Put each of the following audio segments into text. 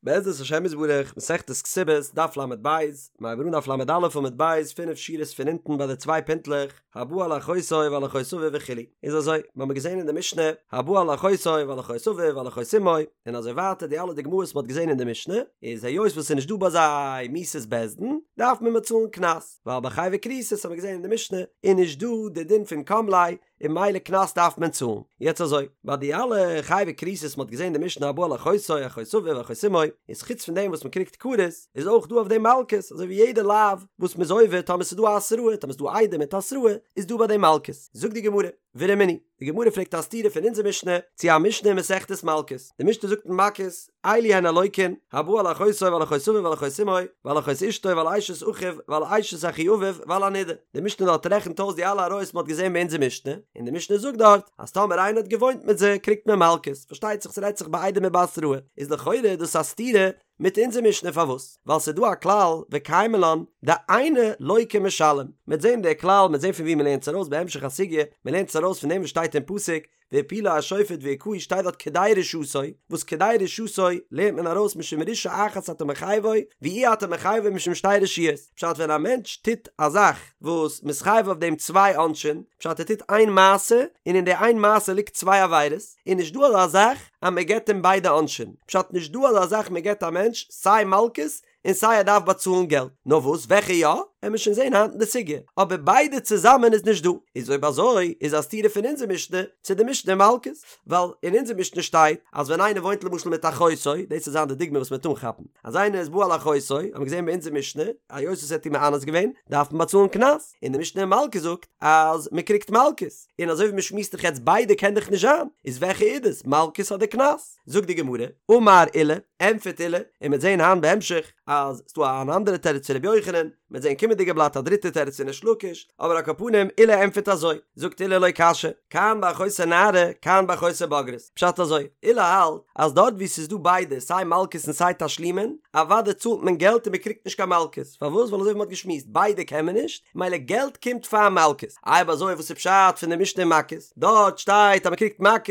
בעזרת השם יתברך, מסכת כתובות, דף לב, מיר הייבן אן דף לא עמוד ב', פינף שורות פון אונטן ביי די צוויי פינטלעך, הבא על אחותו ועל אחות אביו וכו'. איז אזוי, מיר האבן געזען אין די משנה, הבא על אחותו ועל אחות אביו ועל אחות אמו, און אזוי ווייטער די אלע דוגמאות מ'האט געזען אין די משנה, איז היות וואס ס'איז נישט דא ביי זיי מיתת בית דין, דארף מען באצאלן קנס, ווייל ביי חייבי כריתות האבן מיר געזען אין די משנה, איז נישט דא די דין פון קם ליה, און ממילא קנס דארף מען צאלן. יעצט אזוי, ביי די אלע חייבי כריתות מ'האט געזען די משנה הבא על אחותו, אחות אביו, אחות אמו, איז חוץ פון דעם וואס מ'קריגט כרת, איז אויך דא אויף דעם מלקות, אזוי ווי יעדע לאו וואס מ'איז עובר טאמער ס'איז דא א התראה, טאמער ס'איז דא עדים מיט התראה, איז דא ביי דעם מלקות. זאגט די גמרא, ורמינהי, די גמרא פרעגט א סתירה פון אונזער משנה צו א משנה אין מסכת מלקות, די משנה זאגט אין מכות, אלו הן הלוקין, הבא על אחותו ועל אחות אביו ועל אחות אמו, ועל אחות אשתו ועל אשת אחיו ועל אשת אחי אביו ועל הנידה. די משנה דארט רעכנט אויס די אלע עריות מ'האט געזען ביי אונזער משנה, און די משנה זאגט דארט אז טאמער איינער האט געוואוינט מיט זיי קריגט מען מלקות, פארשטייט זיך ס'רעדט זיך בעדים ובהתראה, איז לכאורה דאס א סתירה מיט אונזער משנה פארוואס? ווייל ס'איז דא א כלל וקיימא לן דאינו לוקה ומשלם, מ'עט זען די כלל מ'עט זען פון ווי מ'לערנט עס ארויס בהמשך הסוגיא, מ'לערנט עס ארויס פון דעם וואס שטייט אין פסוק והפילו השופט והכהו שטייט דארט כדי רשעתו, וואס כדי רשעתו לערנט מען ארויס משום רשעה אחת אתה מחייבו, ואי אתה מחייבו משום שתי רשעיות, פשט ווען א מענטש טוט א זאך וואס מ'איז חייב אויף דעם צוויי עונשים, פשט ער טוט איין מעשה און אין די איין מעשה ליגט צוויי עבירות, איז נישט דא אזא זאך אז מען געבט אים ביידע עונשים, פשט נישט דא אזא זאך מען געבט א מענטש סיי מלקות און סיי ער דארף באצאלן געלט, נאר וואס וועלכע יא, עמיר שוין זעהן היינט אין די סוגיא, אבער ביידע צוזאמען איז נישט דא, איז אויב אזוי איז א סתירה פון אונזער משנה צו די משנה אין מלקות, ווייל אין אונזער משנה שטייט אז ווען איינער וואוינט למשל מיט אחותו, דאס וועט זיין די דוגמא וואס מ'וועט אנכאפן, אז איינער איז בא על אחותו, האבן מיר געזעהן ביי אונזער משנה, היות ער האט איר מאנס געווען, דארף מען באצאלן קנס, און די משנה אין מלקות זאגט אז מ'קריגט מלקות, און אזוי ווי מ'שמועסט דאך יעצט ביידע קען דאך נישט זיין, איז וועלכע איז דאס, מלקות אדער קנס? זאגט די גמרא, אמר עולא, ענטפערט עולא, און מ'וועט זען היינט בהמשך אז ס'דא אן אנדערע תירוץ פון ר' יוחנן, מ'וועט זען קומענדיגע בלאט א דריטע תירוץ פון ריש לקיש, אבער על כל פנים עולא ענטפערט אזוי, זאגט עולא לא קשיא, כאן באחותו נערה, כאן באחותו בוגרת, פשט אזוי, עולא האלט אז דארט וואו ס'איז דא ביידע סיי מלקות און סיי תשלומין, אוודאי צאלט מען געלט און מ'קריגט נישט קיין מלקות, פארוואס? ווייל אזוי ווי מ'האט געשמועסט, ביידע קען מען נישט, מילא געלט קומט פאר מלקות, אויב אזוי וואס איז פשט פון די משנה אין מכות? דארט שטייט אז מ'קריגט מכות,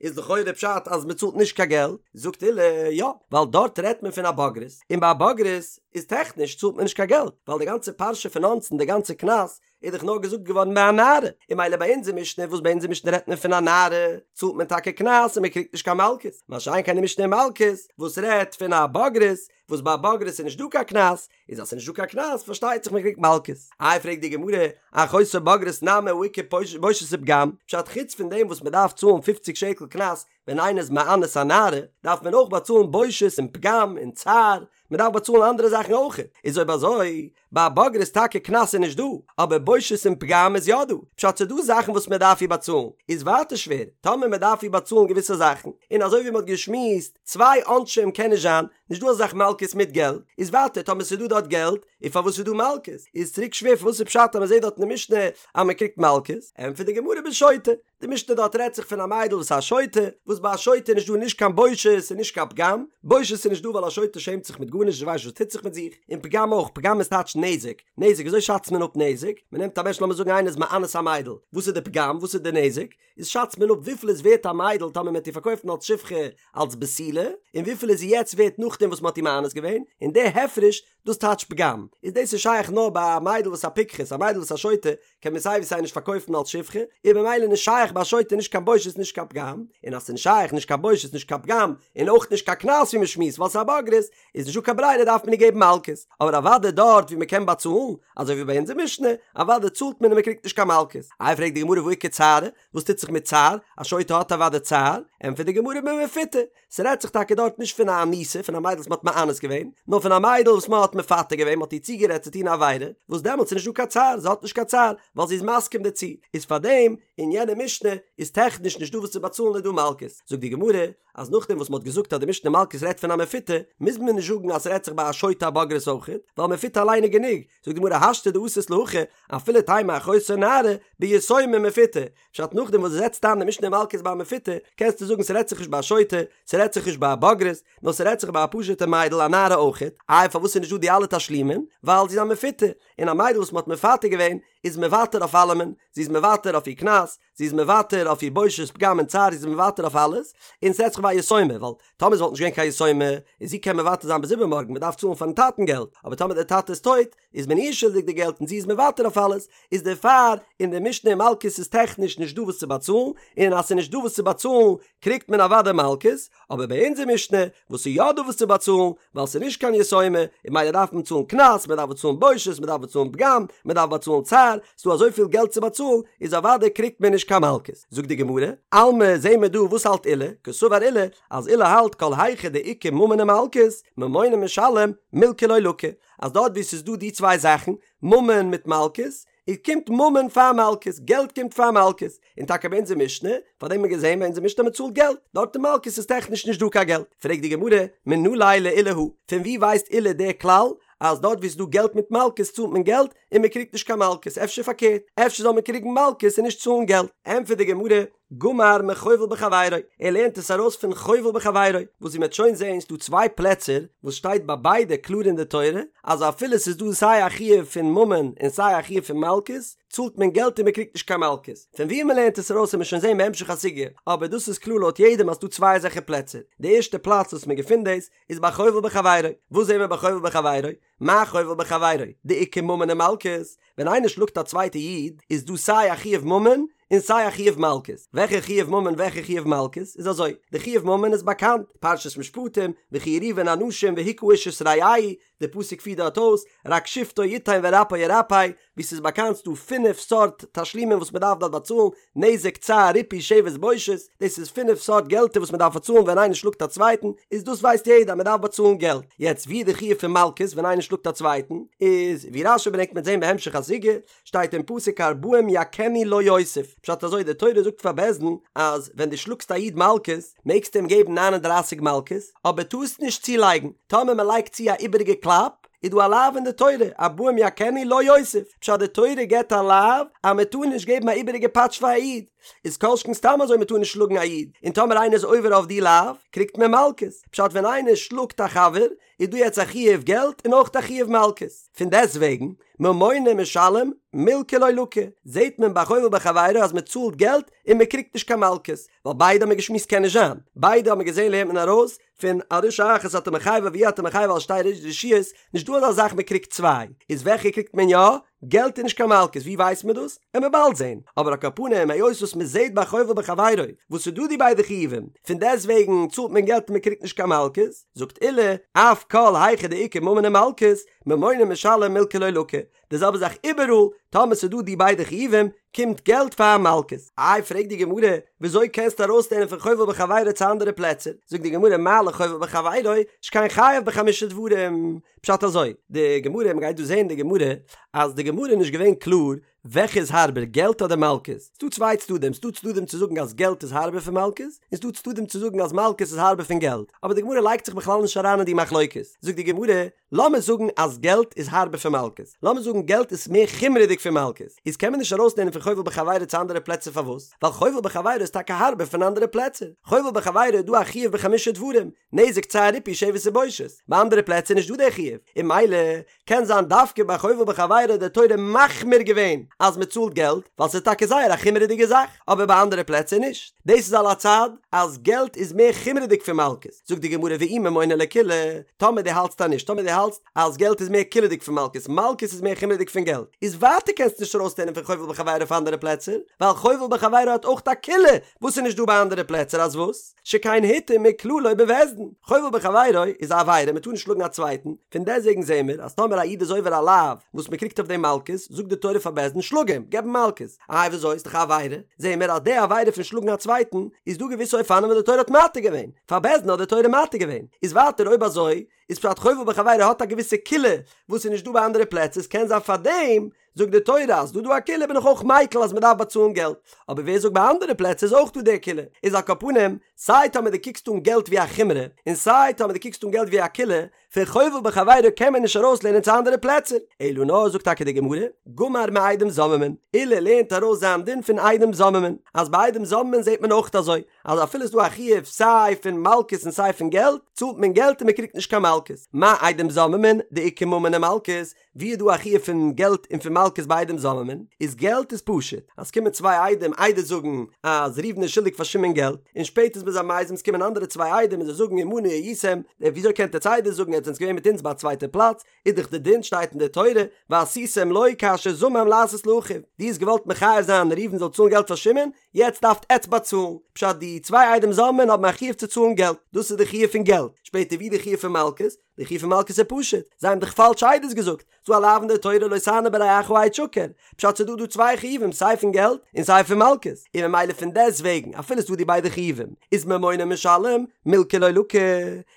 איז לכאורה פשט אז מען צאלט נישט קיין געלט, זאגט עולא, יא, ווייל דארט רעדט מען פון א בוגרת, און ביי א בוגרת איז טעכניש צאלט מען נישט קיין געלט, ווייל די גאנצע פרשה פון אונסין, די גאנצע קנס, איז דאך נאר געזאגט געווארן ביי א נערה, און מילא ביי אונזער משנה, וואס ביי אונזער משנה רעדט מען פון א נערה, צאלט מען טאקע קנס און מען קריגט נישט קיין מלקות, מה שאין כן די משנה אין מלקות, וואס רעדט פון א בוגרת, וואס ביי א בוגרת איז נישט דא קיין קנס, איז אז ס'איז נישט דא קיין קנס פארשטייט זיך מ'קריגט מלקות. איי פרעגט די גמרא, אחותו בוגרת נמי הא איכא בושת ופגם, פשט חוץ פון דעם וואס מ'דארף צאלן פופציג שקל קנס ווען איינער איז מאנס א נערה, דארף מען אויך באצאלן בושת און פגם און צער, מ'דארף באצאלן אנדערע זאכן אויך, איז אויב אזוי ביי א בוגרת טאקע קנס איז נישט דא, אבער בושת און פגם איז יא דא, פשט ס'איז דא זאכן וואס מ'דארף איר באצאלן, איז ווייטער שווער, טאמער מ'דארף איר באצאלן געוויסע זאכן, און אזוי ווי מ'האט געשמועסט, צוויי עונשים קען נישט זיין, נישט דא אזא זאך מלקות מיט געלט, איז ווייטער טאמער ס'איז דא דארט געלט, איז פארוואס איז דא מלקות? איז צוריק שווער פארוואס איז פשט אז מ'זעט דארט אין די משנה אז מ'קריגט מלקות? ענטפערט די גמרא בשוטה, די משנה דארט רעדט זיך פון א מיידל וואס איז א שוטה, וואס ביי א שוטה איז נישט דא נישט קיין בושת און נישט קיין פגם, בושת איז נישט דא ווייל א שוטה שעמט זיך מיט גארנישט זי ווייסט נישט וואס טוט זיך מיט זיך, און פגם אויך, פגם איז טייטש נזק, נזק וויאזוי שאצט מען אפ נזק? מ'נעמט א מענטש לאמיר זאגן איינער איז מאנס א מיידל, וואס איז די פגם? וואס איז די נזק? איז שאצט מען אפ וויפיל איז ווערט א מיידל טאמער מען האט איר פארקויפט אלס שפחה אלס בתולה, און וויפיל איז זי יעצט ווערט נאכדעם וואס מען האט איר מאנס געווען, און די הפרש דאס טייטש פגם, איז דאס איז שייך נאר ביי א מיידל וואס א פיקחת, א מיידל וואס א שוטה קען מען סיי ווי סיי נישט פארקויפן אלס שפחה, איז במילא נישט שייך ביי א שוטה נישט קיין בושת נישט קיין פגם, און אז ס'איז נישט שייך נישט קיין בושת נישט קיין פגם, און אויך נישט קיין קנס ווי מען שמועסט ווייל ס'איז א בוגרת, איז נישטא קיין ברירה דארף מען איר געבן מלקות, אבער אוודאי דארט ווי מען קען באצאלן, אזוי ווי ביי אונזער משנה, אוודאי צאלט מען און מען קריגט נישט קיין מלקות. איי פרעגט די גמרא והא איכא צערא, וואס טוט זיך מיט צער, א שוטה האט אוודאי צער, ענטפערט די גמרא במפותה, ס'רעדט זיך טאקע דארט נישט פון א אנוסה, פון א מיידל וואס מען האט מאנס געווען, נאר פון א מיידל וואס מען האט מפתה געווען, מען האט איר צוגערעדט צו טון א עבירה, וואס דעמאלטס איז נישטא קיין צער, זי האט נישט קיין צער, ווייל זי איז מסכים דערצו, איז פארדעם אין יענע משנה איז טעכניש נישטא וואס צו באצאלן איז דא מלקות, זאגט די גמרא, אז נאכדעם וואס מ'האט געזאגט אז די משנה מלקות רעדט פון א מפותה, מוז מען נישט זאגן אז ס'רעדט זיך ביי א שוטה א בוגרת אויכעט, ווייל מפותה אליין איז גענוג, זאגט די גמרא השתא דאתית להכי, אפילו תימא אחותו נערה, ביתומה מפותה, פשט נאכדעם וואס דו זעצט איין די משנה מלקות ביי א מפותה, קענסטו זאגן ס'רעדט זיך נישט ביי א שוטה, ס'רעדט זיך נישט ביי א בוגרת, נאר ס'רעדט זיך ביי א פשוט'ע מיידל א נערה אויכעט, איי פארוואס איז נישט דא די אלע תשלומין? ווייל זי איז א מפותה, און א מיידל וואס מ'האט מפתה געווען, איז מוותר אויף אלעמען, זי איז מוותר אויף איר קנס, זי איז מוותר אויף איר בושת פגם און צער, זי איז מוותר אויף אלעס, און ס'רעדט זיך ביי א יתומה, ווייל טאמער עס וואלט נישט געווען קיין יתומה, איז זי קען מוותר זיין ביז איבערמארגן, מ'דארף צאלן פארן טאטן געלט, אבער טאמער דער טאטע איז טויט, איז מען איר שולדיג די געלט און זי איז מוותר אויף אלעס, איז דערפאר אין די משנה אין מלקות איז טעכניש נישט דא וואס צו באצאלן, און אז ס'איז נישט דא וואס צו באצאלן קריגט מען אוודאי מלקות, אבער ביי אונזער משנה וואס איז יא דא וואס צו באצאלן, ווייל ס'איז נישט קיין יתומה, און ממילא דארף מען צאלן קנס, מען דארף באצאלן בושת, מען דארף באצאלן פגם, מען דארף באצאלן צער, ס'דא אזויפיל געלט צו באצאלן, איז אוודאי קריגט מען נישט קיין מלקות. זאגט די גמרא, אלמא זעהן מיר דא וואס האלט עולא, קסבר עולא, אז עולא האלט כל היכא דאיכא ממון ומלקות, ממונא משלם, מילקא לא לקי, אז דארט וואו ס'איז דא די צוויי זאכן, ממון מיט מלקות, איז קומט ממון פאר מלקות, געלט קומט פאר מלקות, און טאקע ביי אונזער משנה, פאר דעם האט מען געזען ביי אונזער משנה אז מ'צאלט געלט, דארט אין מלקות איז טעכניש נישט דא קיין געלט, פרעגט די גמרא, מנא ליה לעולא הא, פון וואו ווייסט עולא די כלל אז דארט וואו ס'איז דא געלט מיט מלקות צאלט מען געלט און מ'קריגט נישט קיין מלקות, אפשר פארקערט, אפשר זאל מען קריגן מלקות און נישט צאלן געלט? ענטפערט די גמרא, גמר מחובל בחבירו, ער לערנט עס ארויס פון חובל בחבירו, וואס ווי מ'וועט שוין זעהן ס'דא צוויי פלעצער וואס שטייט ביי ביידע קלאר אין די תורה אז אפילו ס'איז דא סיי א חיוב פון ממון און סיי א חיוב פון מלקות צאלט מען געלט און מ'קריגט נישט קיין מלקות, פון ווי מ'לערנט עס ארויס וועט מען שוין זעהן בהמשך הסוגיא, אבער דאס איז קלאר לויט יעדעם אז ס'דא צוויי אזעלכע פלעצער, די ערשטע פלאץ וואס מ'געפינט דאס איז ביי חובל בחבירו, וואס זעהן מיר ביי חובל בחבירו? מה חובל בחבירו, דאיכא ממון ומלקות, ווען איינער שלאגט א צווייטע איד איז דא סיי א חיוב ממון און סיי א חיוב מלקות, וועלכע חיוב ממון וועלכע חיוב מלקות, איז אזוי, די חיוב ממון איז באקאנט, פרשת משפטים, וכי יריבון אנשים והכה איש את רעהו, די פסוק פירט דארט אויס, רק שפטו יתן ורפא ירפא, ווי ס'איז באקאנט ס'דא פינף סארט תשלומים וואס מ'דארף דארט באצאלן, נזק, צער, ריפוי, שבת, בושת, דאס איז פינף סארט געלטער וואס מ'דארף באצאלן ווען איינער שלאגט א צווייטן, איז דאס ווייסט יעדער אז מ'דארף באצאלן געלט, יעצט ווי איז די חיוב פון מלקות ווען איינער שלאגט א צווייטן, איז ווי רש"י ברענגט מ'עט זען בהמשך הסוגיא, שטייט אין פסוק ארבעים יכנו לא יוסיף, פשט אזוי די תורה זאגט פאר בית דין אז ווען דו שלאגסט א איד מלקות מעגסטו אים געבן ניין און דרייסיג מלקות, אבער טארסט נישט צולייגן, טאמער מ'לייגט צו א איבעריגע קלאפ, איז דא א לאו אין די תורה, ארבעים יכנו לא יוסיף, פשט די תורה געבט א לאו אז מען טאר נישט געבן א איבעריגע פאטש פאר א איד, איז כל שכן סתם אזוי מען טאר נישט שלאגן א איד, און טאמער איינער איז עובר אויף די לאו, קריגט מען מלקות, פשט ווען איינער שלאגט א חבר, איז דא יעצט א חיוב געלט און אויך א חיוב מלקות, פון דעסט וועגן, ממונא משלם, מילקא לא לקי, זעט מען ביי חובל בחבירו אז מען צאלט געלט און מען קריגט נישט קיין מלקות, ווייל ביידע האבן מיר געשמועסט קען נישט זיין, ביידע האבן מיר געזען לערנט מען ארויס פון על רשעה אחת אתה מחייבו ואי אתה מחייבו על שתי רשעיות, נישט דא אזא זאך מען קריגט צוויי, איז וועלכע קריגט מען יא? געלט און נישט קיין מלקות, ווי ווייסט מען דאס? עמיר באלד זען, אבער על כל פנים היות וואס מען זעט ביי חובל בחבירו וואס איז דא די ביידע חיובים, פון דעסט וועגן צאלט מען געלט און מען קריגט נישט קיין מלקות, זאגט עולא, אף כל היכא דאיכא ממון ומלקות, ממונא משלם מילקא לא לקי, די זעלבע זאך איבעראל, טאמער ס'איז דא די ביידע חיובים, קומט געלט פאר מלקות. איי פרעגט די גמרא, וויאזוי קענסטו ארויסלערנען פון חובל בחבירו צו אנדערע פלעצער? זאגט די גמרא מה לחובל בחבירו, שכן חייב בחמישה דברים. פשט אזוי, די גמרא, מ'גייט דא זעהן די גמרא, אז די גמרא איז נישט געווען קלאר וועלכע איז הארבער געלט אדער מלקות. ס'דא צוויי צדדים, ס'דא צדדים צו זאגן אז געלט איז הארבער פון מלקות, און ס'דא צדדים צו זאגן אז מלקות איז הארבער פון געלט. אבער די גמרא לייגט זיך בכלל נישט אריין אין די מחלוקת. זאגט די גמרא, לאמיר זאגן אז געלט איז הארבער פון מלקות, לאמיר זאגן געלט איז מער חומרה'דיג פון מלקות, איז קען מען נישט ארויסלערנען פון חובל בחבירו צו אנדערע פלעצער פארוואס? ווייל חובל בחבירו איז טאקע הארבער פון אנדערע פלעצער, חובל בחבירו איז דא א חיוב בחמישה דברים, נזק צער ריפוי שבת ובושת, ביי אנדערע פלעצער איז נישט דא דער חיוב, און ממילא קען זיין דווקא ביי חובל בחבירו האט די תורה מחמיר געווען אז מען צאלט געלט, ווייל ס'איז טאקע זייער א חומרה'דיגע זאך, אבער ביי אנדערע פלעצער נישט. דאס איז על הצד אז געלט איז מער חומרה'דיג פון מלקות, זאגט די גמרא ואי ממונא לקולא, טאמער דו האלטסט אז נישט, טאמער דו האלטסט אז געלט איז מער קולא'דיג פון מלקות, מלקות איז מער חומרה'דיג פון געלט, איז ווייטער קענסטו נישט ארויסלערנען פון חובל בחבירו אויף אנדערע פלעצער, ווייל חובל בחבירו האט אויך א קולא וואס איז נישט דא ביי אנדערע פלעצער, אז וואס? שכן הותר מכללו בבית דין, חובל בחבירו איז א עבירה, מען טאר נישט שלאגן א צווייטן, פון דעסטוועגן זעהן מיר אז טאמער א איד איז עובר א לאו וואס מען קריגט אויף דעם מלקות, זאגט די תורה פאר בית דין שלאג אים, געב אים מלקות. איי וויאזוי איז דאך א עבירה? זעהן מיר אז די עבירה פון שלאגן א צווייטן איז דא געוויסע אופנים וואס די תורה האט מתיר געווען, פאר בית דין האט די תורה מתיר געווען, איז ווייטער אויב אזוי איז פשט חובל בחבירו האט א געוויסע קולא וואס איז נישט דא ביי אנדערע פלעצער, ס'קען זיין פארדעם זאגט די תורה אז דא דא א קולא בין איך אויך מיקל אז מ'דארף באצאלן געלט, אבער ווער זאגט ביי אנדערע פלעצער איז אויך דא די קולא, איז על כל פנים סיי טאמער דו קוקסט אן געלט ווי א חומרא און סיי טאמער דו קוקסט אן געלט ווי א קולא, פון חובל בחבירו קען מען נישט ארויסלערנען צו אנדערע פלעצער, אלא נאר זאגט טאקע די גמרא, גמר מעדים זוממין, עולא לערנט ארויס זיין דין פון עדים זוממין, אז ביי עדים זוממין זעט מען אויך אזוי, אז אפילו איז דא א חיוב סיי פון מלקות און סיי פון געלט, צאלט מען געלט און מען קריגט נישט קיין מלקות. מה עדים זוממין, דאיכא ממון ומלקות, ווי איז דא א חיוב פון געלט און פון מלקות? מלקות ביי עדים זוממין, איז געלט איז פשוט, אז ס'קומען צוויי עדים עדות זאגן אז ראובן איז שולדיג פאר שמעון געלט, און שפעטער איז מען זיי מזים ס'קומען אנדערע צוויי עדים און זיי זאגן עמנו הייתם, וויאזוי קענט עטץ עדות זאגן עטץ זענטס געווען מיט אונז ביי א צווייטע פלאץ, איז דאך די דין שטייט אין די תורה ועשיתם לו כאשר זמם לעשות לאחיו, דו האסט געוואלט מחייב זיין ראובן זאל צאלן געלט פאר שמעון, יעצט דארפט עטץ באצאלן, פשט די צוויי עדים זוממין האבן א חיוב צו צאלן געלט, דאס איז די חיוב פון געלט, שפעטער ווי די חיוב פון מלקות, די חיוב פון מלקות איז פשוט, זיי האבן דאך פאלש עדות געזאגט, ס'דא א לאו אין די תורה לא תענה ברעך עד שקר, פשט ס'דא דא צוויי חיובים סיי פון געלט און סיי פון מלקות, און ממילא פון דעסט וועגן אפילו ס'דא די ביידע חיובים איז ממונא משלם מילקא לא לקי,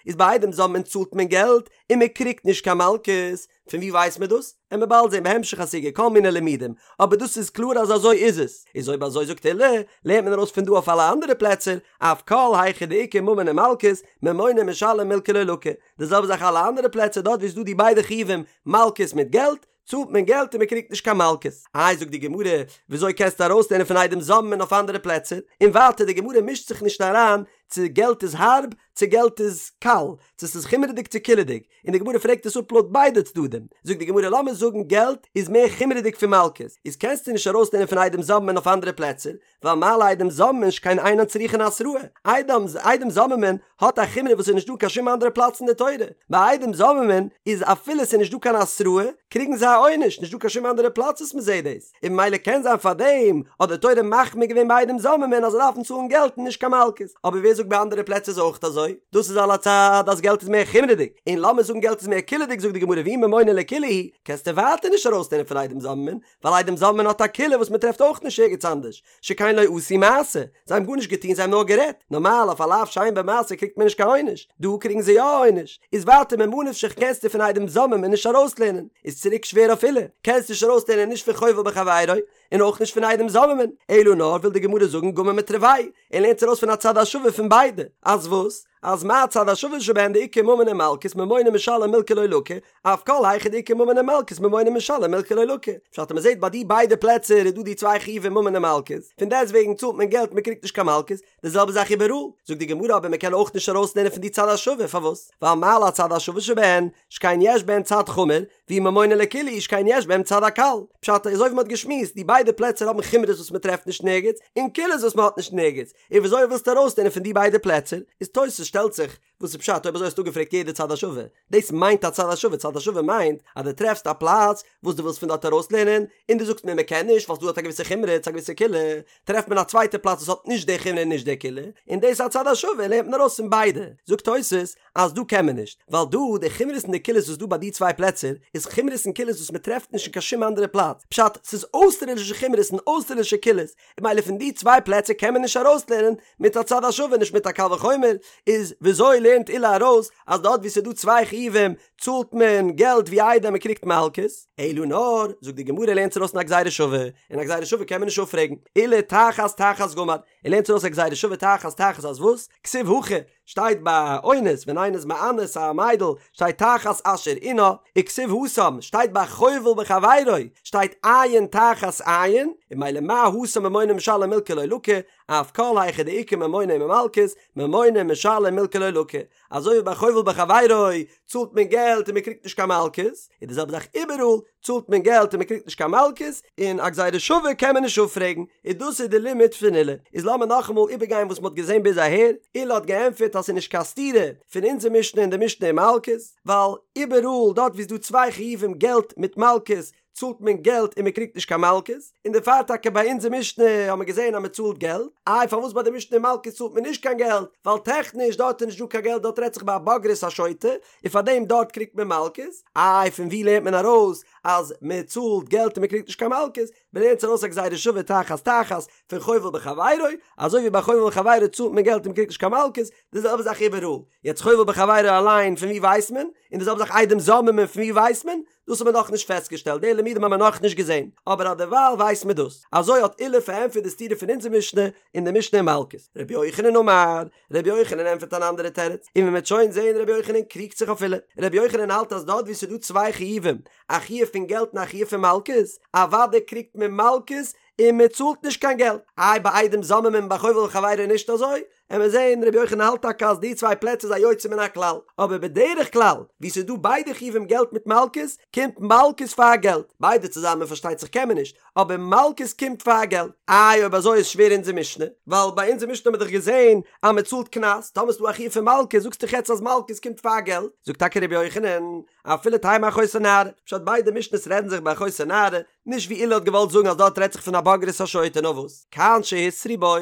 איז ביי עדים זוממין צאלט מען געלט און מען קריגט נישט קיין מלקות, פון ווי ווייסט מען דאס? עמיר באלד זען בהמשך הסוגיא כל מיני לימודים, אבער דאס איז קלאר אז אזוי איז עס, איז אויב אזוי זאגט עולא, לערנט מען ארויס פון דא אויף אלע אנדערע פלעצער, אף כל היכא דאיכא ממון ומלקות, ממונא משלם מילקא לא לקי, די זעלבע זאך אלע אנדערע פלעצער דארט ווי עס איז דא די ביידע חיובים מלקות מיט געלט, צאלט מען געלט און מען קריגט נישט קיין מלקות. איי זאגט די גמרא, וויאזוי קענסטו ארויסלערנען פון עדים זוממין אויף אנדערע פלעצער? און ווייטער די גמרא מישט זיך נישט אריין צו געלט איז הארב צו געלט איז קל, צו ס'איז חומרה'דיג צו קולה'דיג, און די גמרא פרעגט עס אפ לויט ביידע צדדים, זאגט די גמרא לאמיר זאגן געלט איז מער חומרה'דיג פון מלקות, איז קענסטו נישט ארויסלערנען פון עדים זוממין אויף אנדערע פלעצער, ווייל מה לעדים זוממין שכן אינן צריכין התראה, עדים עדים זוממין האט א חומרא וואס איז נישט דא קיין שום אנדערע פלאץ אין די תורה, ביי עדים זוממין איז אפילו ס'איז נישט דא קיין התראה קריגן זיי א עונש, נישט דא קיין שום אנדערע פלאץ וואס מ'זעט דאס, און ממילא קען זיין פארדעם האט די תורה מחמיר געווען ביי עדים זוממין אז זיי דארפן צאלן געלט און נישט קיין מלקות, אבער ווער זאגט ביי אנדערע פלעצער איז אויך אזוי? דאס איז על הצד אז געלט איז מער חומרה'דיג, און לאמיר זאגן געלט איז מער קולה'דיג זאגט די גמרא ואי ממונא לקולא הוא, קענסטו ווייטער נישט ארויסלערנען פון עדים זוממין, ווייל עדים זוממין האט א קולא וואס מען טרעפט אויך נישט ערגעץ אנדערש, שכן לא עשו מעשה, זיי האבן גארנישט געטון זיי האבן נאר גערעדט, נארמאל אויף א לאו שאין בו מעשה קריגט מען נישט קיין עונש, דא קריגן זיי יא א עונש, איז ווייטער ממה נפשך קענסטו פון עדים זוממין נישט ארויסלערנען, איז צוריק שווער אויף עולא, קענסט נישט ארויסלערנען נישט פון חובל בחבירו, און אויך נישט פון עדים זוממין, אלא נאר וויל די גמרא זאגן גמר מתרוייהו, ער לערנט ארויס פון א צד השווה פון ביידע, אז וואס? אז מה הצד השווה שבהן דאיכא ממון ומלקות ממונא משלם מילקא לא לקי, אף כל היכא דאיכא ממון ומלקות ממונא משלם מילקא לא לקי. פשט אז מ'זעט ביי די ביידע פלעצער איז דא די צוויי חיובים ממון און מלקות, פון דעסט וועגן צאלט מען געלט מען קריגט נישט קיין מלקות, די זעלבע זאך איבעראל. זאגט די גמרא אבער מ'קען אויך נישט ארויסלערנען פון די צד השווה, פארוואס? ווייל מה להצד השווה שבהן, שכן יש בהן צד חמור, ואי ממונא לקולא הוא שכן יש בהם צד הקל. פשט אזוי ווי מ'האט געשמועסט, די ביידע פלעצער האבן חומרות וואס מ'טרעפט נישט נערגעץ, און קולות וואס מ'האט נישט נערגעץ, און וויאזוי ווילסטו ארויסלערנען פון די ביידע פלעצער? איז תוס' שטעלט זיך, וואס איז פשט אויב אזוי האסטו אפגעפרעגט יעדע צד השווה? דאס מיינט א צד השווה, צד השווה מיינט אז דו טרעפסט א פלאץ וואס דו ווילסט פון דארט ארויסלערנען, און דו זאגסט מיר מען קען נישט ווייל ס'דא דארט א געוויסע חומרא צו א געוויסע קולא, טרעפט מען א צווייטע פלאץ וואס האט נישט די חומרא און נישט די קולא, און דאס איז א צד השווה לערנט מען ארויס פון ביידע. זאגט תוס' אז דא קען מען נישט, ווייל דא די חומרות און די קולות וואס דא ביי די צוויי פלעצער איז חומרות און קולות וואס מען טרעפט נישט אין קיין שום אנדערע פלאץ, פשט ס'איז אויסטערלישע חומרות און אויסטערלישע קולות, און ממילא פון די צוויי פלעצער קען מען נישט ארויסלערנען מיט א צד השווה נישט מיט א קל וחומר, איז וויאזוי לערנט עולא ארויס אז דארט וואו ס'איז דא צוויי חיובים צאלט מען געלט ווי איידער מען קריגט מלקות? אלא נאר, זאגט די גמרא לערנט ארויס אין א גזירה שווה, און א גזירה שווה קען מען נישט אפפרעגן, עולא תחת תחת גמר, ער לערנט ארויס א גזירה שווה תחת תחת אז וואס? כתיב הכא, שטייט ביי אונס ווען איינער איז מאנס א מיידל שטייט תחת אשר ענה, וכתיב התם שטייט ביי חובל בחבירו שטייט עין תחת עין, און ממילא מה התם ממונא משלם מילקא לא לקי, אף כל היכא דאיכא ממונא ומלקות, ממונא משלם מילקא לא לקי, אזוי ווי ביי חובל בחבירו צאלט מען געלט און מען קריגט נישט קיין מלקות, איז די זעלבע זאך איבעראל, צאלט מען געלט און מען קריגט נישט קיין מלקות, און א גזירה שווה קען מען נישט אפפרעגן, און דאס איז די לימוד פון עולא. איז לאמיר נאכאמאל איבערגיין וואס מען האט געזען ביז אהער, עולא האט געענטפערט אז ס'איז נישט קיין סתירה פון אונזער משנה און די משנה אין מלקות, ווייל איבעראל דארט וואו ס'איז דא צוויי חיובים געלט מיט מלקות, צאלט מען געלט און מען קריגט נישט קיין מלקות, און דערפאר טאקע ביי אונזער משנה האט מען געזען אז מען צאלט געלט, איי פארוואס ביי די משנה אין מלקות צאלט מען נישט קיין געלט, ווייל טעכניש דארט איז נישט דא קיין געלט דארט רעדט זיך ביי א בוגרת א שוטה, און פאר דעם דארט קריגט מען מלקות, איי פון ווי לערנט מען ארויס אז מען צאלט געלט און מען קריגט נישט קיין מלקות, מען לערנט ארויס א גזירה שווה תחת תחת פון חובל בחבירו, אזוי ווי ביי חובל בחבירו צאלט מען געלט און מען קריגט נישט קיין מלקות, די זעלבע זאך איבעראל, יעצט חובל בחבירו אליין פון ווי ווייסט מען, און די זעלבע זאך עדים זוממין פון ווי ווייסט מען, דאס האט מען נאכנישט פעסטגעשטעלט, די לימודים האבן מיר נאכנישט געזען, אבער אדערווייל ווייסט מען דאס. אזוי האט עולא פארענטפערט די סתירה פון אונזער משנה און די משנה אין מלקות. רבי יוחנן אמר, רבי יוחנן ענטפערט אן אנדערע תירוץ, און ווי מ'וועט שוין זען רבי יוחנן קריגט זיך אויף עולא. רבי יוחנן האלט אז דארט וואו ס'איז דא צוויי חיובים, א חיוב פון געלט און א חיוב פון מלקות, אוודאי קריגט מען מלקות און מען צאלט נישט קיין געלט. איי ביי עדים זוממין און ביי חובל בחבירו נישט אזוי? עמיר זעהן רבי יוחנן האלט טאקע אז די צוויי פלעצער איז א יוצא מן הכלל, אבער בדרך כלל וואו ס'איז דא ביידע חיובים געלט מיט מלקות, קומט מלקות פאר געלט, ביידע צוזאמען פארשטייט זיך קען מען נישט, אבער מלקות קומט פאר געלט. איי אויב אזוי איז שווער אונזער משנה, ווייל ביי אונזער משנה האט מען דאך געזעהן אז מען צאלט קנס, טאמער ס'איז דא א חיוב פון מלקות זאגסטו דאך יעצט אז מלקות קומט פאר געלט, זאגט טאקע רבי יוחנן, אפילו תימא אחותו נערה, פשט ביידע משנות רעדן זיך ביי אחותו נערה, נישט ווי עולא האט געוואלט זאגן אז דארט רעדט זיך פון א בוגרת א שוטה נאר וואס כאן שהתרו בו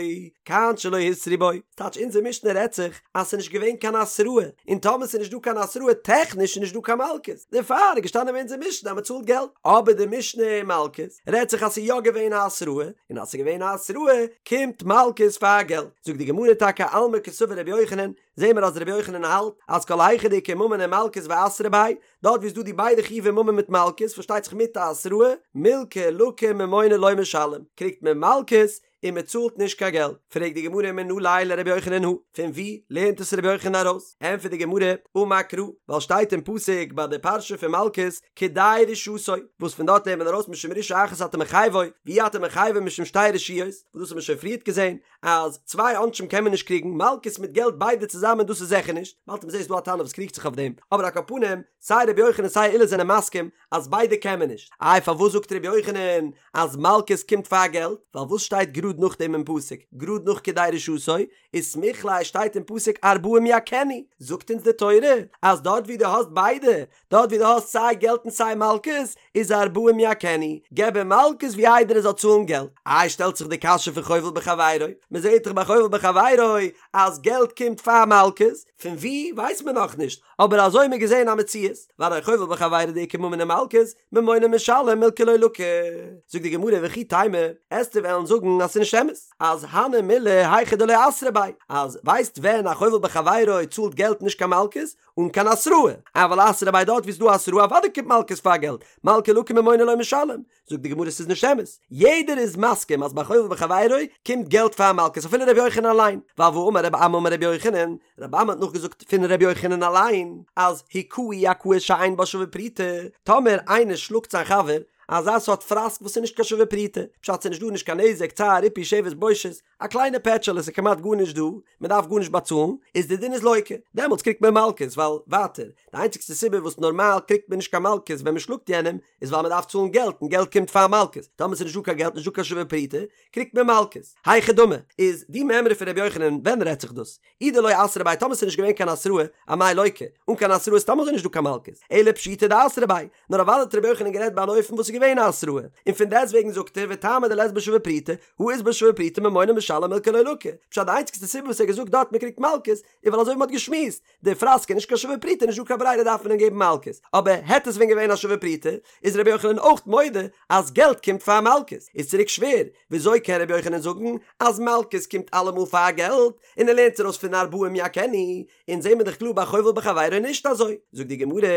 כאן שלא התרו בו, ס'טייטש אונזער משנה רעדט זיך אז ס'איז נישט געווען קיין התראה, און טאמער ס'איז נישט דא קיין התראה טעכניש איז נישט דא קיין מלקות, דערפאר איז געשטאנען אין אונזער משנה אז מ'צאלט געלט, אבער די משנה אין מלקות רעדט זיך אז ס'איז יא געווען א התראה, און אז ס'איז געווען א התראה קומט מלקות פאר געלט, זאגט די גמרא טאקע אלמא קסבר רבי יוחנן, זעהן מיר אז רבי יוחנן האלט אז כל היכא דאיכא ממון ומלקות ואתרו ביה, דארט ווי איז דא די ביידע חיובי ממון מיט מלקות פארשטייט זיך מיט א התראה, מילקא לקי ממונא לא משלם, קריגט מען מלקות און מען צאלט נישט קיין געלט, פרעגט די גמרא מנא ליה לרבי יוחנן הא, פון ווי לערנט עס רבי יוחנן ארויס? ענטפערט די גמרא, אמר קרא, ווייל שטייט אין פסוק ביי די פרשה פון מלקות, כדי רשעתו, וואס פון דארט לערנט מען ארויס משום רשעה אחת אתה מחייבו, ואי אתה מחייבו משום שתי רשעיות, וואס דאס האט מען שוין פריערט געזען, אז צוויי עונשים קען מען נישט קריגן, מלקות מיט געלט ביידע צוזאמען דאס איז זיכער נישט, באלד מ'זעט ס'איז דא א תנא וואס קריגט זיך אויף דעם, אבער על כל פנים, סיי רבי יוחנן סיי עולא זענען מסכים אז ביידע קען מען נישט, איי פארוואס זאגט רבי יוחנן אז מלקות קומט פאר געלט, ווייל וואס שטייט גראד נאכדעם אין פסוק, גראד נאך כדי רשעתו, וסמיך ליה שטייט אין פסוק ארבעים יכנו, זאגט אונז די תורה אז דארט ווי דו האסט ביידע, דארט ווי דו האסט סיי געלט און סיי מלקות, איז ארבעים יכנו, געב אים מלקות ווי איידער ער זאל צאלן געלט. איי שטעלט זיך די קשיא פון חובל בחבירו, מען זעט דאך ביי חובל בחבירו אז געלט קומט פאר מלקות, פון ווי ווייסט מען נאכנישט, אבער אזוי האט מען געזען א מציאות, והרי חובל בחבירו דאיכא ממון ומלקות, ממונא משלם מילקא לא לקי. זאגט די גמרא וכי תימא, עסטו וועלן זאגן אז ס'איז נישט אמת, אז הני מילי היכא דלא אתרו ביה, אז ווייסט ווען א חובל בחבירו צאלט געלט נישט קיין מלקות, אן קיין התראה, אבל אתרו ביה דארט ווי ס'איז דא התראה אוודאי קומט מלקות פאר געלט, מלקא לקי ממונא לא משלם, זאגט די גמרא ס'איז נישט אמת, יעדער איז מסכים אז ביי חובל בחבירו קומט געלט פאר מלקות אפילו ר' יוחנן אליין, ווייל והאמר רבי אמי אמר ר' יוחנן, רבי אמי האט נאכגעזאגט פון ר' יוחנן אליין אז הכהו הכאה שאין בה שווה פרוטה, טאמער איינער שלאגט זיין חבר אזא סארט פראסק וואס איז נישט קיין שווה פרוטה, פשט ס'איז נישט דא נישט קיין נזק, צער, ריפוי, שבת, בושת, א קליינע פעטשעלע ס'איז כמעט גארנישט דא, מען דארף גארנישט באצאלן, איז די דין איז לוקה, דעמאלטס קריגט מען מלקות, ווייל ווייטער, די איינציגסטע סיבה וואס נארמאל קריגט מען נישט קיין מלקות ווען מען שלאגט יענעם, איז ווייל מען דארף צאלן געלט און געלט קומט פאר מלקות, טאמער ס'איז נישט דא קיין געלט נישט דא קיין שווה פרוטה, קריגט מען מלקות. היכי דמי, איז די מימרא פון ר' יוחנן ווען רעדט זיך דאס? אי דלא אתרו ביה טאמער ס'איז נישט געווען קיין התראה, אמאי לוקה, אן קיין התראה איז סתם אזוי נישט דא קיין מלקות, אלא פשיטא דאתרו ביה, נאר אוודאי האט ר' יוחנן גערעדט ביי אן אופן וואס איז געווען א התראה, און פון דעסטוועגן זאגט ער וטעמא דלית בה שווה פרוטה, הא אית בה שווה פרוטה ממונא משלם מילקא לא לקי, פשט די איינציגסטע סיבה וואס ער האט געזאגט דארט מ'קריגט מלקות, איז ווייל אזוי ווי מ'האט געשמועסט, די פראסק איז נישט קיין שווה פרוטה נישט דא קיין ברירה דארף מען אים געבן מלקות, אבער העט עס ווען געווען א שווה פרוטה, איז ר' יוחנן אויך מודה אז געלט קומט פאר מלקות, איז צוריק שווער, וויאזוי קען ר' יוחנן זאגן אז מלקות קומט אלעמאל פאר געלט, און ער לערנט ארויס פון ארבעים יכנו, אונז זעהן מיר דאך קלאר ביי חובל בחבירו נישט אזוי, זאגט די גמרא,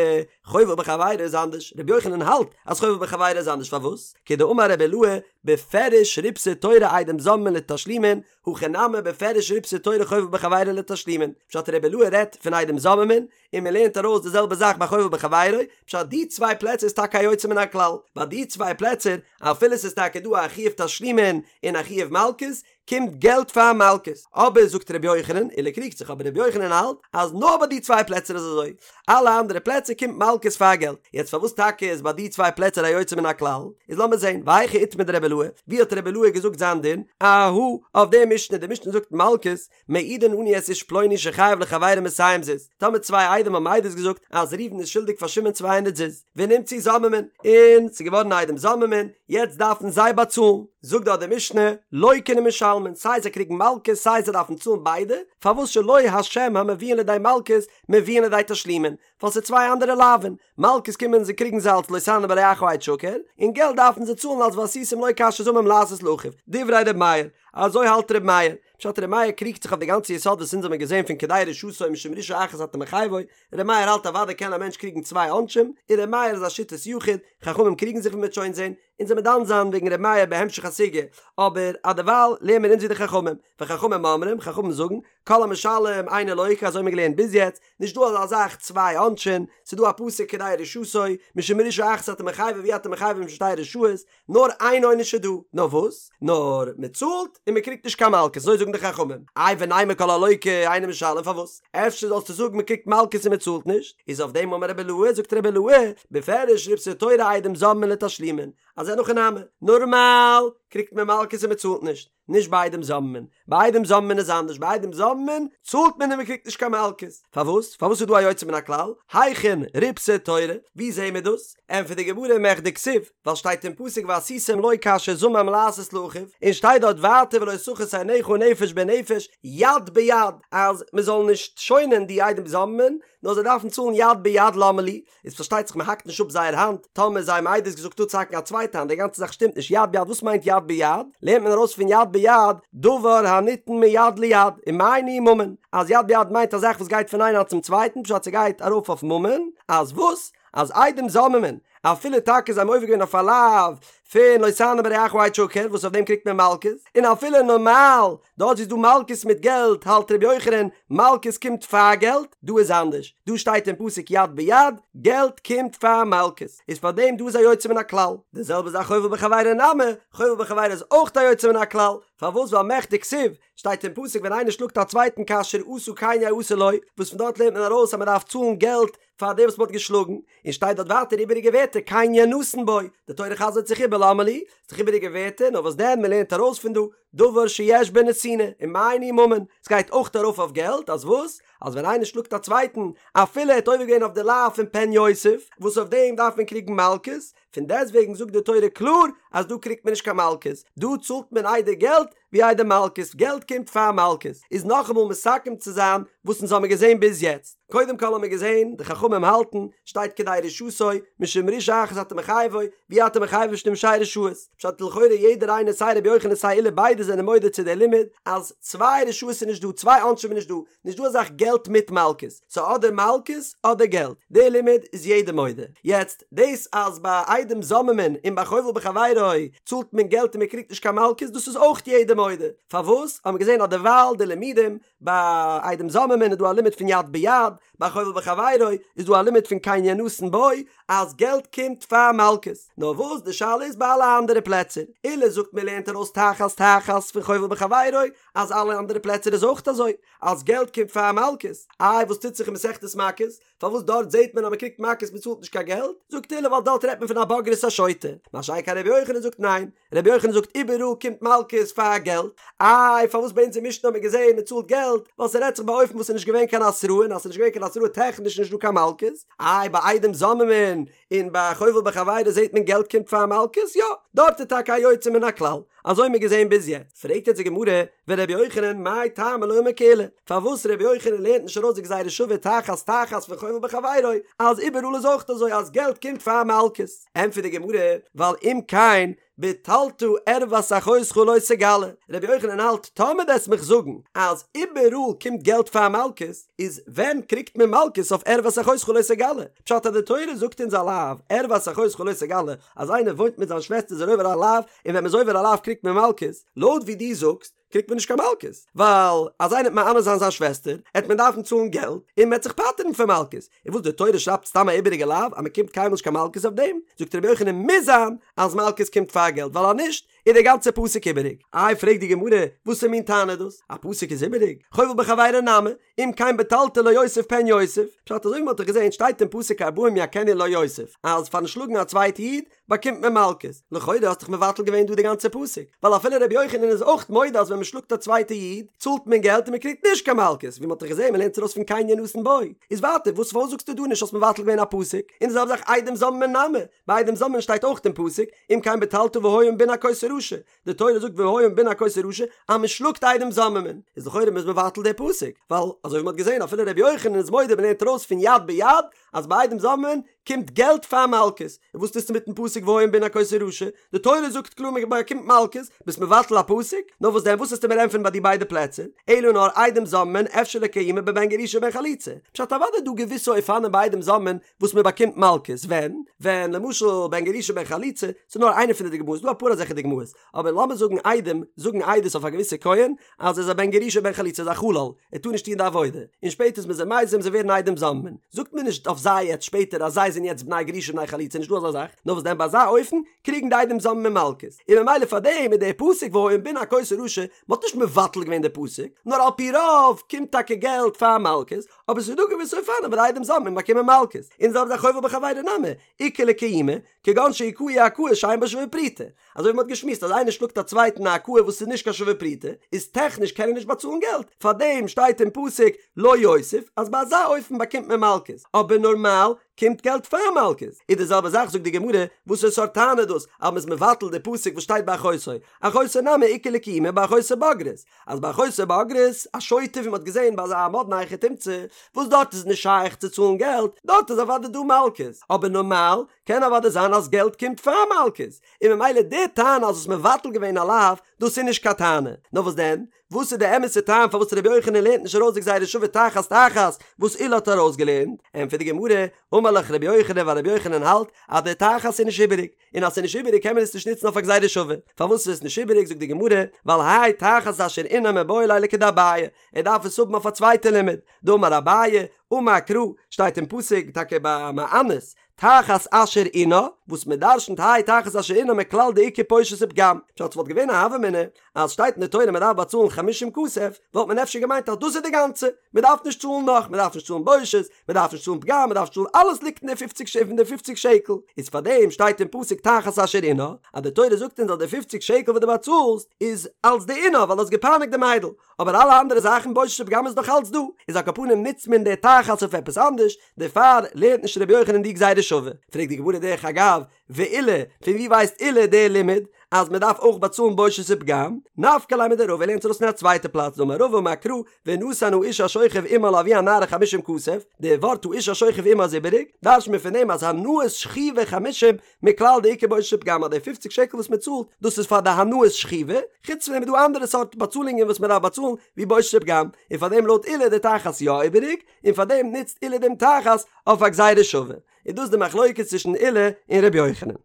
חובל בחבירו איז אנדערש, רבי יוחנן האלט אז חובל בחבירו איז אנדערש פארוואס? כדאמר רבי אילעא, בפירוש ריבתה תורה עדים זוממין לתשלומין, הכא נמי בפירוש ריבתה תורה חובל בחבירו לתשלומין, פשט רבי אילעא רעדט פון עדים זוממין, און מען לערנט ארויס די זעלבע זאך ביי חובל בחבירו, פשט די צוויי פלעצער איז טאקע א יוצא מן הכלל, ביי די צוויי פלעצער אפילו ס'איז טאקע דא א חיוב תשלומין און א חיוב מלקות, קומט געלט פאר מלקות, אבער זאגט ר' יוחנן, עולא קריגט זיך אבער ר' יוחנן האלט אז נאר ביי די צוויי פלעצער איז אזוי, אלע אנדערע פלעצער קומט מלקות פאר געלט, יעצט פארוואס טאקע איז ביי די צוויי פלעצער א יוצא מן הכלל, איז לאמיר זען, והיכא איתמר דרבי אילעא, ווי האט רבי אילעא געזאגט זיין דין, אהא, אויף די משנה, די משנה זאגט מלקות, מעידין אנו את איש פלוני שחייב לחבירו מאתים זוז, טאמער צוויי עדים האבן עדות געזאגט אז ראובן איז שולדיג פאר שמעון צוויי הונדערט זוז, ונמצאו זוממין, און ס'איז געווארן עדים זוממין, יעצט דארפן זיי באצאלן, זאגט דארט די משנה, לוקין ומשלמין, סיי זיי קריגן מלקות סיי זיי דארפן צאלן ביידע, פארוואס שלא השם המביאין לידי מלקות מביאין לידי תשלומין, ווייל ס'איז צוויי אנדערע לאווין, מלקות קומען זיי קריגן זיי אלס לא תענה ברעך עד שקר, און געלט דארפן זיי צאלן אלס ועשיתם לו כאשר זמם לעשות לאחיו, דברי ר' מאיר, אזוי האלט ר' מאיר, פשט ר' מאיר קריגט זיך אויף די גאנצע יסוד וואס אונז האבן געזען פון כדי רשעתו משום רשעה אחת אתה מחייבו, ר' מאיר האלט אוודאי קען א מענטש קריגן צוויי עונשים, און ר' מאיר איז א שיטת יחיד, חכמים קריגן זיך ווי מ'וועט שוין זען, אונז וועמיר דן זיין וועגן ר' מאיר בהמשך הסוגיא, אבער אדערווייל לערן מיר אונז ווי די חכמים, וחכמים אומרים, חכמים זאגן, כל המשלם אינו לוקה, אזוי האבן מיר געלערנט ביז יעצט, נישט דא אזא זאך צוויי עונשים, ס'איז דא א פסוק כדי רשעתו, משום רשעה אחת אתה מחייבו ואי אתה מחייבו משום שתי רשעות, נאר איין עונש איז דא, נאר וואס? נאר מען צאלט און מען קריגט נישט קיין מלקות, אזוי זאגן די חכמים. איי ונימא כל הלוקה אינו משלם פארוואס? אפשר זאלסטו זאגן מען קריגט מלקות און מען צאלט נישט? איז אויף דעם אמר רבי אילעא, זאגט רבי אילעא, בפירוש ריבתה תורה עדים זוממין לתשלומין, אז אין הכי נמי, נארמאל קריגט מען מלקות און מען צאלט נישט, נישט ביי עדים זוממין, ביי עדים זוממין איז אנדערש, ביי עדים זוממין צאלט מען און מען קריגט נישט קיין מלקות, פארוואס? פארוואס איז דא א יוצא מן הכלל? היכן ריבתה תורה? ווי זעהן מיר דאס? ענטפערט די גמרא מכדי כתיב, ווייל שטייט אין פסוק ועשיתם לו כאשר זמם לעשות לאחיו, און שטייט דארט ווייטער ולא תחוס עינך נפש בנפש יד ביד, אז מען זאל נישט שוינען די עדים זוממין, נאר זיי דארפן צאלן יד ביד למה לי, איז פארשטייט זיך מען האקט נישט אפ זייער האנט, טאמער זיי האבן עדות געזאגט אפצוהאקן א צווייטע האנט, די גאנצע זאך שטימט נישט, יד ביד וואס מיינט יד ביד? לערנט מען ארויס פון יד ביד, דבר הניתן מיד ליד, ומאי ניהו ממון, אז יד ביד מיינט א זאך וואס גייט פון איין האנט צום צווייטן, פשט ס'גייט ארויף אויף ממון, אז וואס? אז עדים זוממין, אפילו טאקע זיי האבן עובר געווען אויף א לאו פון לא תענה ברעך עד שקר וואס אויף דעם קריגט מען מלקות, און אפילו נארמאל דארט ווי ס'איז דא מלקות מיט געלט האלט ר' יוחנן מלקות קומט פאר געלט, דא איז אנדערש, דא שטייט אין פסוק יד ביד, געלט קומט פאר מלקות, איז פאר דעם דא איז א יוצא מן הכלל, די זעלבע זאך חובל בחבירו נמי, חובל בחבירו איז אויך א יוצא מן הכלל, פארוואס ווייל מכדי כתיב, שטייט אין פסוק ווען איינער שלאגט א צווייטן כאשר עשה כן יעשה לו, וואס פון דארט לערנט מען ארויס אז מען דארף צאלן געלט פאר דעם וואס מען האט געשלאגן, און שטייט דארט ווייטער איבעריגע ווערטער כן ינתן בו, די תורה חזר'ט זיך איבער למה לי, ס'איז דאך איבעריגע ווערטער, נאר וואס דען מען לערנט ארויס פון דא, דבר שיש בו נתינה, ומאי ניהו ממון, ס'גייט אויך ארויף אויף געלט, אז וואס? אז ווען איינער שלאגט א צווייטן, אפילו ער האט עובר געווען אויף די לאו פון פן יוסיף, וואס אויף דעם דארף מען קריגן מלקות, פון דעסטוועגן זאגט די תורה קלאר אז דא קריגט מען נישט קיין מלקות, דא צאלט מען איידער געלט ווי איידער מלקות, געלט קומט פאר מלקות, איז נאכאמאל מסכם צו זיין וואס אונז האמיר געזען ביז יעצט, קודם כל האמיר געזען די חכמים האלטן, שטייט כדי רשעתו, משום רשעה אחת אתה מחייבו, ואי אתה מחייבו משום שתי רשעות, פשט לכאורה יעדער איינער סיי רבי יוחנן סיי עולא ביידע זענען מודה צו די לימוד אז צוויי רשעות איז נישט דא, צוויי עונשים איז נישט דא, נישט דא אזאך געלט מיט מלקות, ס'איז אדער מלקות אדער געלט, די לימוד איז יעדער מודה. יעצט, דאס אז ביי עדים זוממין און ביי חובל בחבירו צאלט מען געלט און מען קריגט נישט קיין מלקות דאס איז אויך יעדער מודה, פארוואס? האט מען געזען אז דערווייל די לימודים, ביי עדים זוממין איז דא א לימוד פון יד ביד, ביי חובל בחבירו איז דא א לימוד פון כן ינתן בו אז געלט קומט פאר מלקות, נאר וואס די שאלה איז ביי אלע אנדערע פלעצער, עולא זאגט מען לערנט ארויס תחת תחת פון חובל בחבירו אז אלע אנדערע פלעצער איז אויך אזוי אז געלט קומט פאר מלקות, איי וואס טוט זיך אין מסכת מכות? פארוואס דארט זעט מען אז מען קריגט מכות מען צאלט נישט קיין געלט? זאגט עולא ווייל דארט רעדט מען פון א בוגרת א שוטה, מה שאין כן רבי יוחנן זאגט ניין, רבי יוחנן זאגט איבעראל קומט מלקות פאר געלט, איי פארוואס ביי אונז אין משנה האט מען געזען מען צאלט געלט, ווייל ס'רעדט זיך באופן וואס ס'איז נישט געווען קיין התראה און אז ס'איז נישט געווען קיין התראה טעכניש נישט דא קיין מלקות, איי ביי עדים זוממין און ביי חובל בחבירו זעט מען געלט קומט פאר מלקות, יא דארט איז טאקע א יוצא מן הכלל, אזוי האט מען געזען ביז יעצט, פרעגט יעצט די גמרא, ורבי יוחנן מאי טעמא לא אמר כעולא, פארוואס רבי יוחנן לערנט נישט ארויס די גזירה שווה תחת תחת פון חובל בחבירו, אז איבעראל איז אויך אזוי אז געלט קומט פאר מלקות, ענטפערט די גמרא, ווייל אם כן בטלת ערות אחותך לא תגלה, רבי יוחנן האלט טאמער וועסט מיך זאגן אז איבעראל קומט געלט פאר מלקות, איז ווען קריגט מען מלקות אויף ערות אחותך לא תגלה? פשט אז די תורה זאגט אונז א לאו, ערות אחותך לא תגלה, אז איינער וואוינט מיט זיין שוועסטער איז ער עובר א לאו, און ווען מ'איז עובר א לאו קריגט מען מלקות, לויט ווי דו זאגסט קריגט מען נישט קיין מלקות, ווייל אז איינער וועט מאנס זיין זיין שוועסטער, עט מען דארפן צאלן געלט, און מ'עט זיך פטר'ן פון מלקות, און וואס די תורה שרייבט סתם א איבעריגע לאו אז מ'קומט קיינמאל נישט קיין מלקות אויף דעם, זאגט רבי יוחנן מוז זיין אז מלקות קומט פאר געלט ווייל אז נישט איז דער גאנצער פסוק איבעריג. איי פרעגט די גמרא, וואסער מין טענה איז דאס? א פסוק איז איבעריג? חובל בחבירו נמי, אם כן בטלת לא יוסיף פן יוסיף, פשט אזוי ווי מ'האט דאך געזען שטייט אין פסוק ארבעים יכנו לא יוסיף, אז פארן שלאגן א צווייטע איד באקומט מען מלקות, לכאורה האסט דאך מבטל געווען דא די גאנצע פסוק, ווייל אפילו רבי יוחנן איז אויך מודה אז ווען מ'שלאגט א צווייטע איד צאלט מען געלט און מ'קריגט נישט קיין מלקות, ווי מ'האט דאך געזען מ'לערנט ארויס פון כן ינתן בו, איז ווייטער וואס פארוואס זאגסטו דא נישט האסט מבטל געווען א פסוק, און די זעלבע זאך עדים זוממין נמי, ביי עדים זוממין שטייט אויך אין פסוק, אם כן בטלת והיה אם בן הכות הרעה. רשע, די תורה זאגט והיה אם בן הכות הרשע אז מען שלאגט עדים זוממין, איז לכאורה מ'איז מבטל די פסוק, ווייל אזוי ווי מען האט געזען אפילו ר' יוחנן איז מודה מען לערנט ארויס פון יד ביד אז ביי עדים זוממין קומט געלט פאר מלקות, און וואס טוסטו מיטן פסוק והיה אם בן הכות הרשע, די תורה זאגט קלאר מען באקומט מלקות, ביסט מבטל א פסוק? נאר וואס דען וואס וועסטו מיר ענטפערן ביי די ביידע פלעצער, אלא נאר עדים זוממין אפשר לקיימי בבן גרושה ובן חלוצה, פשט אוודאי איז דא געוויסע אופנים ביי עדים זוממין וואס מען באקומט מלקות, ווען? ווען למשל בן גרושה בן חלוצה, ס'איז נאר איינע פון די דוגמאות, ס'דא אפאר אזעלכע דוגמאות, אבער לאמיר זאגן עדים זאגן עדות אויף א געוויסע כהן אז ער איז א בן גרושה בן חלוצה איז א חלל, ער טאר נישט טון די עבודה, און שפעטער איז מען זיי מזים זיי ווערן עדים זוממין, זאגט מען נישט אויף זיי יעצט שפעטער אז זיי זענען יעצט בני גרושה בני חלוצה נישטא אזא זאך, נאר וואס דען ביי אזא אופן קריגן די עדים זוממין מלקות, און ממילא פאר דעם איז דער פסוק והיה אם בן הכות הרשע, מען האט נישט מבטל געווען די פסוק, נאר על פי רוב קומט טאקע געלט פאר מלקות, אבער ס'איז דא געוויסע אופנים וואס די עדים זוממין באקומען מלקות, און זעלבע זאך חובל בחבירו נמי, איכא לקיומי, כגון שהכהו הכאה שאין בה שווה פרוטה. אזוי ווי מ'האט געשמועסט אז איינער שלאגט א צווייטן א הכאה וואס איז נישט קיין שווה פרוטה, איז טעכניש קען ער נישט באצאלן געלט, פארדעם שטייט אין פסוק לא יוסיף אז ביי אזא אופן באקומט מען מלקות, אבער נארמאל קומט געלט פאר מלקות. איז די זעלבע זאך זאגט די גמרא, וואסערע סארט טענה איז דאס אז מ'איז מבטל די פסוק וואס שטייט ביי אחותו, אחותו נמי איכא לקיומי באחותו בוגרת, אז ביי אחותו בוגרת, א שוטה ווי מ'האט געזען ביי אזא מאדנע היכי תמצא, וואס דארט איז נישט שייך צו צאלן געלט, דארט איז אוודאי דא מלקות, אבער נארמאל קען אוודאי זיין אז געלט קומט פאר מלקות, און ממילא די טענה אז האסט מבטל געווען א לאו, דאס איז נישט קיין טענה, נאר וואס דען? וואס איז די אמת'ע טעם פארוואס רבי יוחנן לערנט נישט ארויס די גזירה שווה תחת תחת וואס עולא האט ארויסגעלערנט? ענטפערט די גמרא, אמר לך רבי יוחנן ווייל רבי יוחנן האלט אז די תחת איז נישט איבעריג, און אז ס'איז נישט איבעריג קען מען עס נישט נוצן אויף א גזירה שווה. פארוואס איז עס נישט איבעריג זאגט די גמרא, ווייל האי תחת אשר ענה מיבעי ליה לכדאביי, ער דארף עס האבן אויף א צווייטע לימוד, דאמר אביי, אמר קרא, שטייט אין פסוק טאקע ביי מאנס, תחת אשר ענה, וואס מען דרשנ'ט האי תחת אשר ענה מכלל דאיכא בושת ופגם, פשט ס'וואלט געווען א הוה אמינא אז שטייט אין די תורה מען דארף באצאלן חמישים כסף, וואלט מען אפשר געמיינט אז דאס איז די גאנצע, מען דארף נישט צאלן נאך, מען דארף נישט צאלן בושת, מען דארף נישט צאלן פגם, מען דארף נישט צאלן, אלעס ליגט אין די פופציג ש אין די פופציג שקל, איז פאר דעם שטייט אין פסוק תחת אשר ענה, אז די תורה זאגט אונז אז די פופציג שקל וואס דו באצאלסט איז אלס די עונה ווייל דו האסט געפייניגט די מיידל, אבער אלע אנדערע זאכן בושת ופגם איז נאך אלץ דא, איז על כל פנים נוצט מען די תחת אויף עפעס אנדערש, דערפאר לערנט נישט רבי יוחנן די גזירה שווה. פרעגט די גמרא דרך אגב, ועולא, פון ווי ווייסט עולא די לימוד אז מען דארף אויך באצאלן בושת ופגם? נפקא ליה מדרבא, ער לערנט עס ארויס פון א צווייטע פלאץ, דאמר רבא אמר קרא, ונתן האיש השוכב עמה לאבי הנערה חמישים כסף, די ווארט האיש השוכב עמה איז איבעריג, דרש'ט מען פון דעם אז הנאת שכיבה חמישים מכלל דאיכא בושת ופגם אז די פופציג שקל וואס מען צאלט דאס איז פאר די הנאת שכיבה, חוץ פון דעם איז דא אנדערע סארט באצאלונגען וואס מען דארף באצאלן ווי בושת ופגם, און פאר דעם לויט עולא איז די תחת יא איבעריג, און פאר דעם נוצט עולא דעם תחת אויף א גזירה שווה. איז דאס די מחלוקת צווישן עולא און ר' יוחנן.